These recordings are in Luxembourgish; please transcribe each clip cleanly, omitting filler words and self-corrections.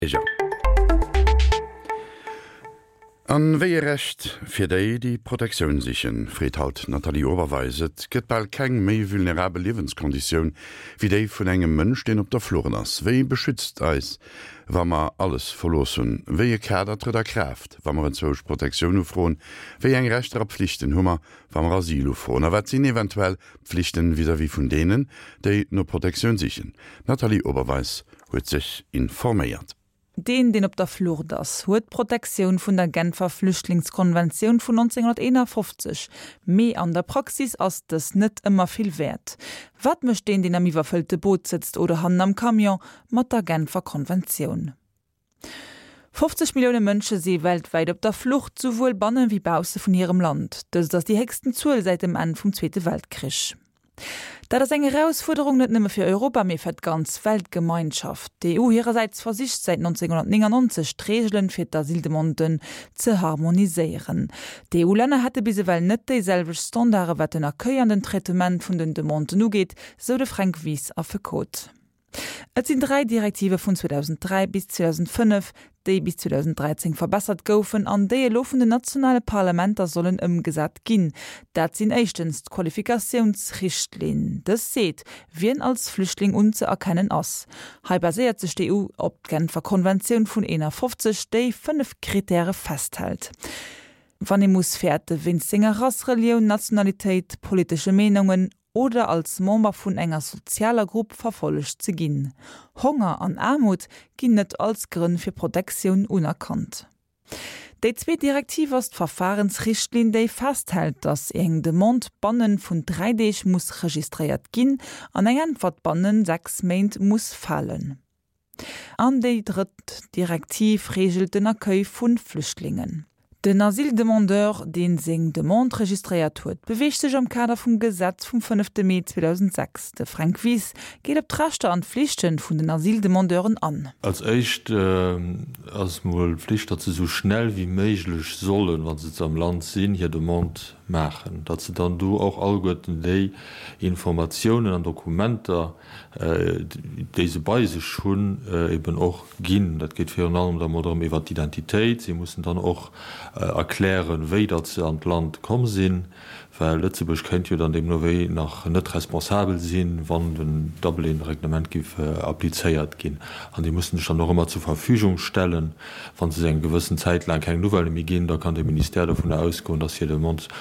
Bierger. An wéi e Recht fir déi, déi Protektioun sichen, freet haut d'Nathalie Oberweis. Et gëtt bal keng méi vulnerabel Liewenskonditioun wéi déi vun engem Mënsch, deen op der Flucht ass. Wie beschützt eis, wa mer alles verlooss hunn? Wéi e Kader trëtt a Kraaft, wa mer enzwousch Protektioun ufroen? Wéi eng Rechter a Pflichten hu mer, wa mer Asyl ufroen? A wat sinn eventuell d'Pflichten vis-à-vis vun deenen, déi no Protektioun sichen? D'Nathalie Oberweis huet sech informéiert. Deen, deen op der Flucht ass, huet d'Protektioun vun der Genfer Flüchtlingskonventioun vun 1951, mee an der Praxis ass dës net ëmmer vill wäert. Wat mécht deen, deen am iwwerfëllte Boot sëtzt oder hannen am Camion, mat der Genfer Konventioun? 50 Millioune Mënsche si weltwäit op der Flucht, souwuel banne wéi bausse vun hirem Land. Dëst ass déi héchsten Zuel säit dem Enn vum Zweete Weltkrich. Dat ass eng Erausfuerderung net nëmme fir Europa, mee fir d'ganz Weltgemeinschaft. D'EU hirersäits versicht säit 1999 d'Reegelen fir d'Asyldemanden ze harmoniséieren. D'EU-Länner hätte bis ewell net déi selwecht Standarde wat den Accueil an den Traitement vun den Demanden ugeet, sou de Fränk Wies, Affekot. Et sinn 3 Direktive vun 2003 bis 2005, déi bis 2013 verbessert goufen an déi elo vun den nationale Parlamenter sollen ëmgesat ginn. Dat sinn éischtens d'Qualifikatiounsrichtlinn. Dës seet, wien als Flüchtling unzëerkennen ass. Hei baséiert sech d'EU op d'Genfer Konventioun vun 51, déi 5 Kritäre festhält. Wann ee muss fäerte wéinst senger Rass, Relioun, Nationalitéit, politesche Meenungen oder als Member vun enger sozialer Grupp verfollegt ze ginn. Honger an Aarmut ginn net als Grënn fir Protektioun unerkannt. Déi zweet Direktiv ass d'Verfahrensrichtlinn, déi festhält, datt eng Demande bannen vun 3 Deeg muss registréiert ginn an eng Äntwert bannen 6 Méint muss falen. An déi drëtt Direktiv reegelt den Accueil vu Flüchtlingen. Den Asyldemandeur, dee seng Demande registréiert huet, beweegt sech am Kader vum Gesetz vum fënnefte Mee 2006. De Fränk Wies geet op d'Rechter an d'Flichte vun den Asyldemandeuren an. Als éischt ass mol d'Flicht, datt se esou schnell wéi méiglech sollen, wa se am Land sinn, hir Demande maachen, datt se dann do och alleguerten déi Informatiounen an Dokumenter, déi se bei sech hunn, eben och ginn. Dat geet virun allem da mol drëm iwwert d'Identitéit. Si mussen dann och erklären, wéi datt se an d'Land komm sinn, well Lëtzebuerg kéint jo dann deemno wéi nach net responsabel sinn, wann den Dublin-Reglement géif applizéiert ginn. An déi mussen sech dann och ëmmer zur Verfügung stellen. Wa se eng gewëssen Zäit laang keng Nouvellë méi ginn, da kann de Ministère dovunner ausgoen, datt hir Demande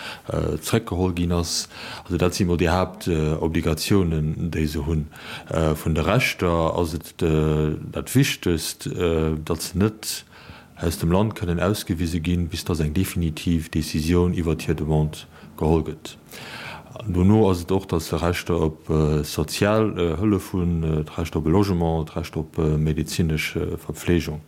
zréckgeholl ginn ass. Also dat si mol déi Haaptobligatiounen, déi se hunn. Vun de Rechter ass et dat Wichtegst, datt se net aus dem Land kënnen ausgewise ginn, bis datt eng definitiv Decisioun iwwert hir Demande geholl gëtt. Dono ass et och, datt se Rechter op sozial Hëllef hunn, d'Recht op e Logement, d'Recht op medezinesch Verpflegung.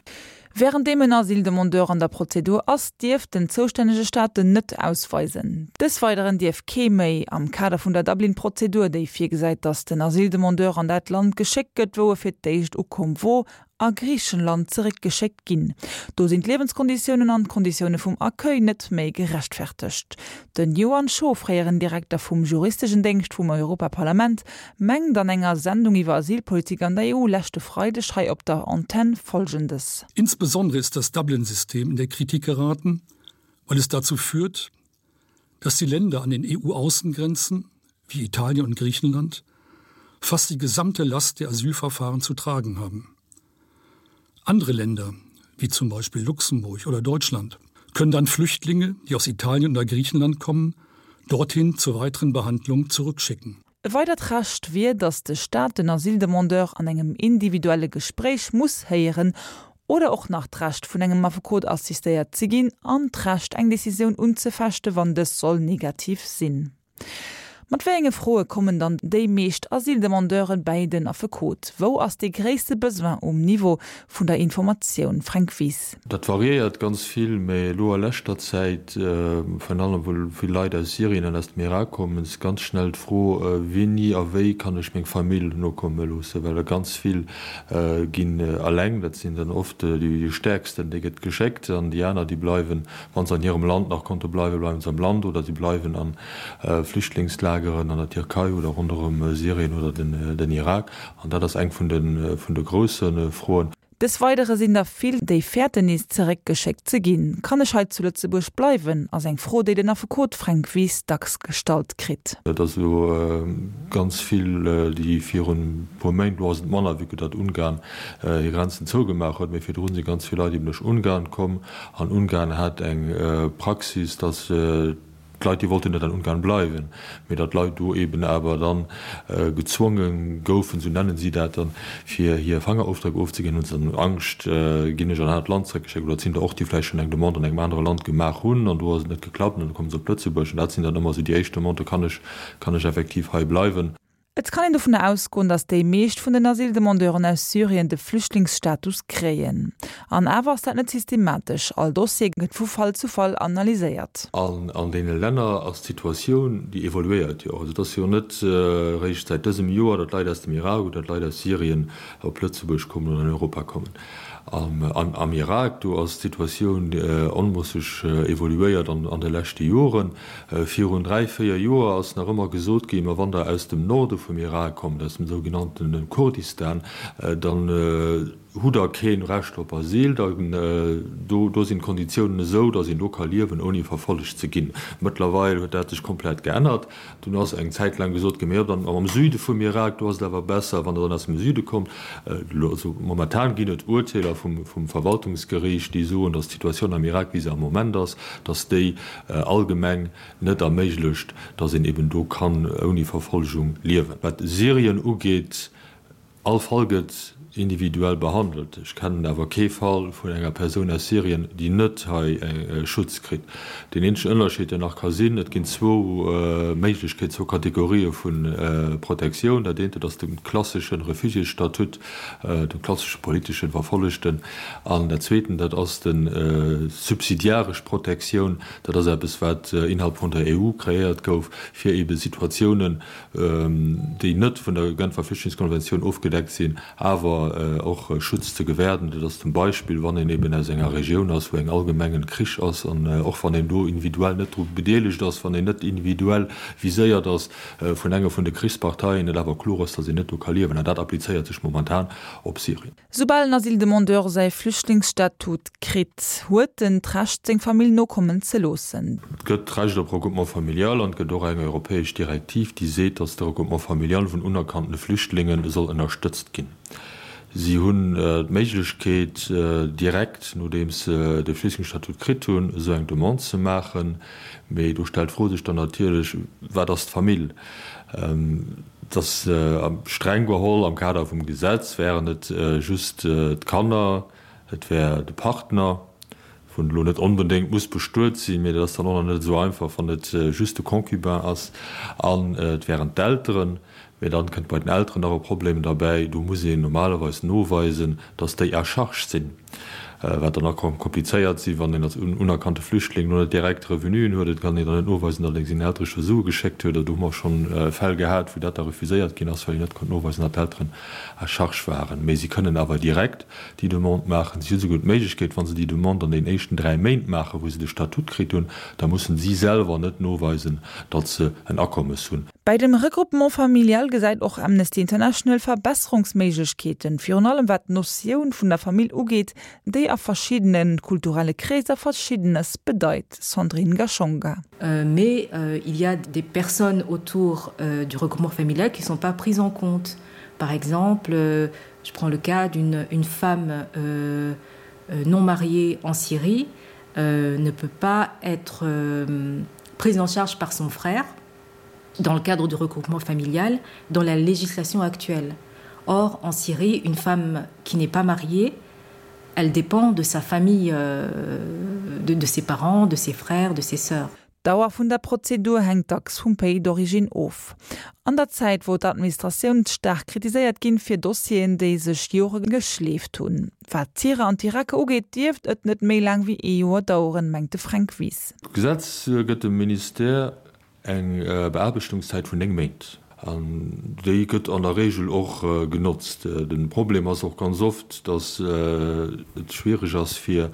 Wärenddeem en Asyldemandeur an der Prozedur ass, dierf den zoustännege Staat en net ausweisen. Des Weideren dierf kee méi, am Kader vun der Dublin-Prozedur, déi virgesäit, datt den Asyldemandeur an dat Land geschéckt gëtt, wou e fir d'éischt ukomm wor, a Griichenland zeréckgeschéckt ginn. Do sinn d'Liewenskonditiounen an d'Konditioune vum Accueil net méi gerechtfertegt. Den Johann Scho, fréieren Direkter vum juristegen Déngscht vum Europaparlament, mengt an enger Sendung iwwer Asylpolitik an der EU leschte Freideg hei op der Antenn Folgendes. Insbesondere ist das Dublin-System in der Kritik geraten, weil es dazu führt, dass die Länder an den EU-Außengrenzen wie Italien und Griechenland fast die gesamte Last der Asylverfahren zu tragen haben. Andere Länder, wie zum Beispiel Luxemburg oder Deutschland, können dann Flüchtlinge, die aus Italien oder Griechenland kommen, dorthin zur weiteren Behandlung zurückschicken. E weidert Recht wier, datt de Staat den Asyldemandeur an engem individuelle Gespréich muss héieren oder och nach d'Recht vun engem Affekot assistéiert ze ginn an d'Recht eng Decisioun unzefechte wann dës soll negativ sinn. Mat wéi enge Froe kommen dann déi meescht Asyldemandeuren bäi den Affekot? Wou ass dee gréisste Besoin um Niveau vun der Informatioun? Fränk Wies. Dat variéiert ganz vill, mä elo a leschter Zäit, virun allem wou vill Leit aus Syrien an aus dem Irak kommen, ass ganz schnell d'Fro, Wéini a wéi kann ech meng Famill nokomme loossen? Well der ganz vill ginn eleng, dat sinn dann oft déi Stäerksten, déi gëtt geschéckt an déi aner, déi bleiwen Wann se an hirem Land nach konnte bleiwen, bleiwen se am Land oder si bleiwen a Flüchtlingslageren an der Tierkei oder ronderëm Syrien oder den Irak. An dat ass eng vun de, vun de grousse Froen. Des Weidere sinn der vill, déi fäerten nees zeréckgeschéckt ze ginn. Kann ech hei zu Lëtzebuerg bleiwen? ass eng Fro, déi den Affekot Fränk Wies dacks gestallt kritt. Et ass elo ganz vill, déi virun e puer Méint, elo ass et manner, vu que datt Ungarn hir Grenzen zougemaach huet, mee virdrun si ganz vill Leit eben duerch Ungarn komm an Ungarn hat eng Praxis, datt D'Leit, déi wollten net an Ungarn bleiwen, mee datt d'Leit do eben awer dann gezwonge goufen, esou nennen si dat dann, fir hir Fangerofdréck ofzeginn, hunn se dann Angscht, ginn ech an en anert Land zréckgeschéckt. Oder et sinn der och, déi vläicht schonn eng Demande an engem anere Land gemaach hunn an do ass et net geklappt an da komme se op Lëtzebuerg. An dat sinn dann ëmmer esou déi éischt Demanden, Kann ech, kann ech effektiv hei bleiwen? Et kann een dovun ausgoen, datt déi meescht vun den Asyldemandeuren aus Syrien de Flüchtlingsstatus kréien. An awer ass dat net systematesch, all Dossier gëtt vu Fall zu Fall analyséiert. An an deene Länner ass d'Situatioun, déi evoluéiert jo och. Also et ass jo net eréischt säit dësem Joer, datt Leit aus dem Irak oder datt Leit aus Syrien op Lëtzebuerg kommen oder an Europa kommen. Am Irak, do ass d'Situatioun onmosseg evoluéiert an de leschte Joren. Virun 3, 4 Joer ass nach ëmmer gesot ginn, ma wann Der aus dem Norde vum Irak kommt, aus dem sougenannte Kurdistan, dann hutt Der kee Recht op Asyl, dann do do sinn d'Konditiounen esou, datt een do ka liewen, ouni verfollegt ze ginn. Mëttlerweil huet dat sech komplett geännert. Dunn ass eng Zäit laang gesot ginn, ma jo, dann am Süde vum Irak, do ass et awer besser, wann Der dann aus dem Süde kommt. Also momentan ginn et Urteeler vum vum Verwaltungsgeriicht, déi soen, datt d'Situatioun am Irak, wéi se am Moment ass, datt déi allgemeng net erméiglecht, datt een eben do kann ouni Verfolgung liewen. Wat Syrien ugeet, all Fall gëtt individuell behandelt. Ech kennen awer kee Fall vun enger Persoun aus Syrien, déi net hei Schutz kritt. Deen eenzegen Ënnerscheed, deen nach ka sinn, et ginn zwou Méiglechkeeten, zwou Kategorië vu Protektioun. Dat eent, dat ass de klassesche Refugiésstatut, de klassesche politeschen Verfollegten, an dat Zweeten, dat ass de subsidiaresch Protektioun. Dat ass eppes, wat innerhalb vun der EU kreéiert gouf, fir eebe Situatiounen, déi net vun der Genfer Flüchtlingskonventioun ofgedeckt sinn, awer och Schutz ze gewäerden. Dat ass zum Beispill, wann een eeben aus enger Regioun ass, wou eng allgemengen Krich ass, an och wann een do individuell net dru bedeelegt ass, wann een net individuell viséiert ass vun enger vun de Krichsparteien, et awer kloer ass, datt een net do ka liewen. An dat applizéiert sech momentan op Syrien. Soubal en Asyldemandeur säi Flüchtlingsstatut kritt, huet en d'Recht seng Famill nokommen ze loossen. Et gëtt d'Recht op Regroupement familial an et gëtt och eng europäesch Direktiv, déi seet, datt de Regroupement familial vun unerkannte Flüchtlinge soll ënnerstëtzt ginn. Si hunn d'Méiglechkeet, direkt nodeems se de Flüchtlingsstatut kritt hunn, esou eng Demande ze maachen. Mee do stellt d'Fro sech dann natierlech, Wat ass d'Famill? Et ass streng geholl am Kader vum Gesetz wären et just d'Kanner, et wär de Partner, wou elo net onbedéngt muss bestuet sinn, mee dat ass dann och nach net esou einfach, wann et just de Concubin ass, an et wären d'Elteren. Mee dann kënnt bei den Elteren nach e Problem derbäi, do muss een normalerweis noweisen, datt déi à charge sinn, wat dann nach ka komplizéiert sinn, wann een als unerkannte Flüchtling lo net direkt Revenuen huet. Et kann een dann net noweisen, datt een sengen Eltere scho Sue geschéckt huet. Do hu mer schonn Fäll gehat, wou dat da refuséiert ginn ass, well een net konnt noweisen, datt d'Elteren à charge waren. Mee si kënnen awer direkt déi Demande maachen. Si hu souguer d'Méiglechkeet, wa se déi Demande an den éischten 3 Méint maachen, wou se de Statut kritt hunn, da mussen si selwer net noweisen, datt se en Akommes hunn. Bei dem Regroupement familial gesäit och Amnesty International Verbesserungsméiglechkeeten, virun allem wat d'Notioun vun der Famill ugeet, déi a verschiddene kulturelle Kreeser Verschiddenes bedeit. Sandrine Gashonga. Mais il y a des personnes autour du regroupement familial qui ne sont pas prises en compte. Par exemple, je prends le cas d'une une femme euh, non mariée en Syrie euh, ne peut pas être euh, prise en charge par son frère dans le cadre du regroupement familial dans la législation actuelle. Or, en Syrie, une femme qui n'est pas mariée, elle dépend de sa famille, euh, de, de ses parents, de ses frères, de ses sœurs. D'Dauer vun der Prozedur hänkt dacks vum Pays d'origine of. An der Zäit, wou d'Administratioun staark kritiséiert ginn fir Dossieren, déi sech Jore geschleeft hunn. Wat d'Syrer an d'Iraker ugeet, dierft et net méi laang wéi ee Joer daueren, mengt de Fränk Wies. D'Gesetz gëtt dem Ministère Eng Beaarbechtungszäit vun 9 Méint, an déi gëtt an der Regel och genotzt. De Problem ass och ganz oft, datt et schwiereg ass fir.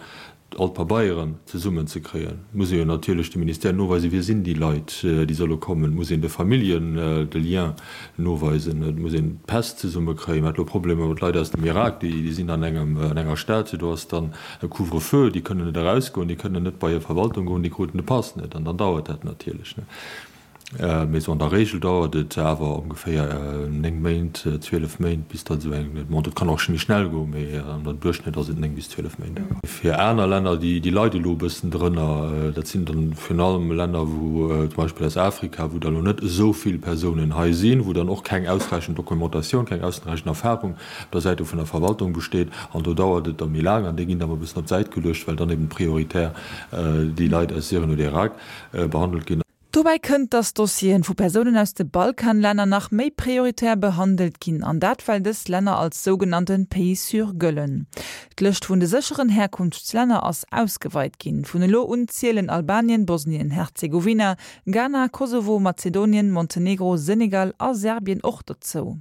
all d'Pabeieren zesummen ze kréien. Et muss ee jo natierlech dem Ministère noweisen, wie sinn déi Leit, déi solle kommen. Et muss een de Familljen de Lien noweisen. Et muss een d'Päss zesumme kréien. Mir hate lo Problemer mat Leit aus dem Irak, déi sinn an engem, an enger Stad, do ass dann e Couvre-feu, déi kënnen net erausgoen, déi kënnen net bei hir Verwaltung goen, déi kruten de Pass net. An dann dauert dat natierlech. Mee sou an der Regel dauert et awer ongeféier 9 Méint, 12 Méint, bis datt esou eng Demande, et kann och méi schnell goen, mee an der Duerchschnëtt ass et 9 bis 12 Méint. Fir aner Länner, déi leide elo e bëssen drënner, dat sinn dann virun allem Länner, wou zum Beispill aus Afrika, wou da lo net esou vill Persounen hei sinn, wou dann och keng ausräichend Dokumentatioun, keng ausräichend Erfahrung op der Säit vun der Verwaltung besteet. An do dauert et da méi laang an déi ginn da mol e bëssen op d'Säit geluecht, well dann eben prioritär déi Leit aus Syrien oder Irak behandelt ginn. Dobäi kënnt, dass Dossieren vu Persounen aus de Balkanlänner nach méi prioritär behandelt ginn, an dat well dës Länner als sougenannte Pays sûrs gëllen. D'Lëscht vun de sécheren Herkunftslänner ass ausgeweit ginn. Vun elo un zielen Albanien, Bosnien-Herzegowina, Ghana, Kosovo, Mazedonien, Montenegro, Senegal a Serbien och dozou.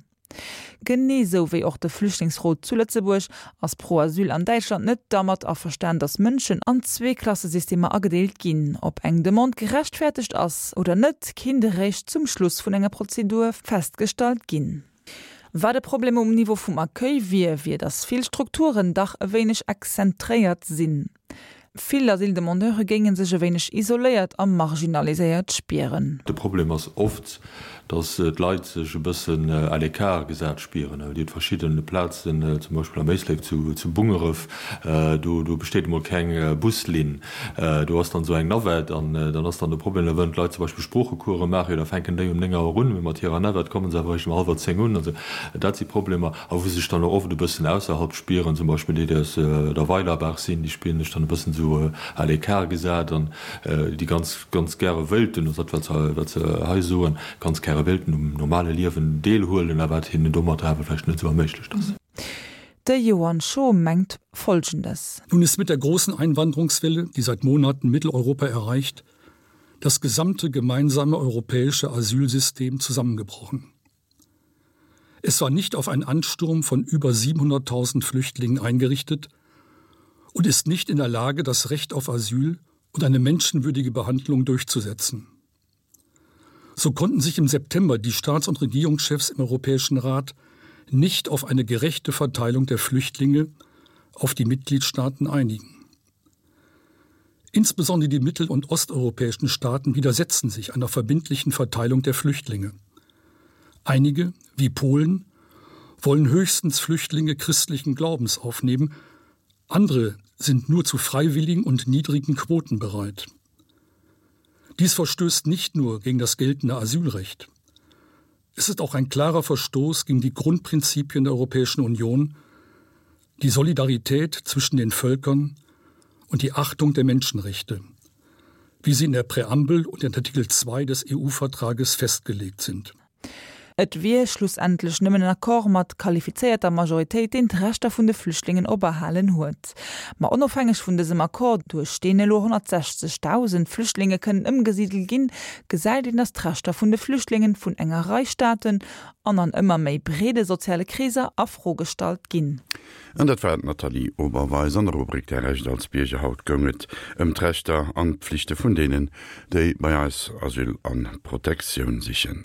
Genee sou wéi och de Flüchtlingsrot zu Lëtzebuerg ass Pro Asyl an Däitschland net dermat averstan, datt Mënschen an Zweeklassesystemer agedeelt ginn. Ob eng Demande gerechtfertegt ass oder net, kinnt eréischt zum Schluss vun enger Prozedur festgestallt ginn. Wat e Problem um Niveau vum Accueil wier, wier, datt vill Strukturen dach e wéineg exzentréiert sinn. Vill Asyldemandeure géinge sech e wéineg isoléiert a marginaliséiert spieren. De Problem ass oft, datt d'Leit sech e bëssen à l'écart gesat spieren. Dir hutt verschidde Plazen, zum Beispill am Éislek zu Bungeref, do do besteet emol keng Buslinn. Do ass dann esou eng Navette an dann ass dann de Problem, da wëllen d'Leit zum Beispill Sproochecourse maachen, jo da fänken déi um 9 Auer un, mee mat hirer Navette komme se awer eréischt um hallwer 10 un. Also dat si Problemer. A wou sech dann och oft e bëssen ausserhalb spieren, zum Beispill déi, déi aus der Weilerbaach sinn, déi spieren sech dann e bëssen esou à l'écart gesat an déi ganz, ganz gäre wéilten, also dat wat se, wat se hei soen, ganz gäre wéilten um normale Liewen deelhuelen, a wat hinnen domatter awer vläicht net esou erméiglecht ass. De Johann Schoh mengt Folgendes. Nun ist mit der großen Einwanderungswelle, die seit Monaten Mitteleuropa erreicht, das gesamte gemeinsame europäische Asylsystem zusammengebrochen. Es war nicht auf einen Ansturm von über 700.000 Flüchtlingen eingerichtet und ist nicht in der Lage, das Recht auf Asyl und eine menschenwürdige Behandlung durchzusetzen. So konnten sich im September die Staats- und Regierungschefs im Europäischen Rat nicht auf eine gerechte Verteilung der Flüchtlinge auf die Mitgliedstaaten einigen. Insbesondere die mittel- und osteuropäischen Staaten widersetzen sich einer verbindlichen Verteilung der Flüchtlinge. Einige, wie Polen, wollen höchstens Flüchtlinge christlichen Glaubens aufnehmen, andere sind nur zu freiwilligen und niedrigen Quoten bereit. Dies verstößt nicht nur gegen das geltende Asylrecht. Es ist auch ein klarer Verstoß gegen die Grundprinzipien der Europäischen Union, die Solidarität zwischen den Völkern und die Achtung der Menschenrechte, wie sie in der Präambel und in Artikel 2 des EU-Vertrages festgelegt sind. Et wier schlussendlech nëmmen en Accord mat qualifizéierter Majoritéit, deen d'Rechter vun de Flüchtlingen operhalen huet. Ma onofhängeg vun dësem Accord, duerch deen elo 160.000 Flüchtlinge kënnen ëmgesidelt ginn, gesäit een, datt d'Rechter vun de Flüchtlingen vun enger Rei Staaten an an ëmmer méi breede soziale Kreeser a Fro gestallt ginn. An dat war d'Nathalie Oberweis an der Rubrik Däi Recht als Bierger. Haut goung et ëm d'Rechter an d'Pflichte vun deenen, déi bei eis Asyl an Protektioun sichen.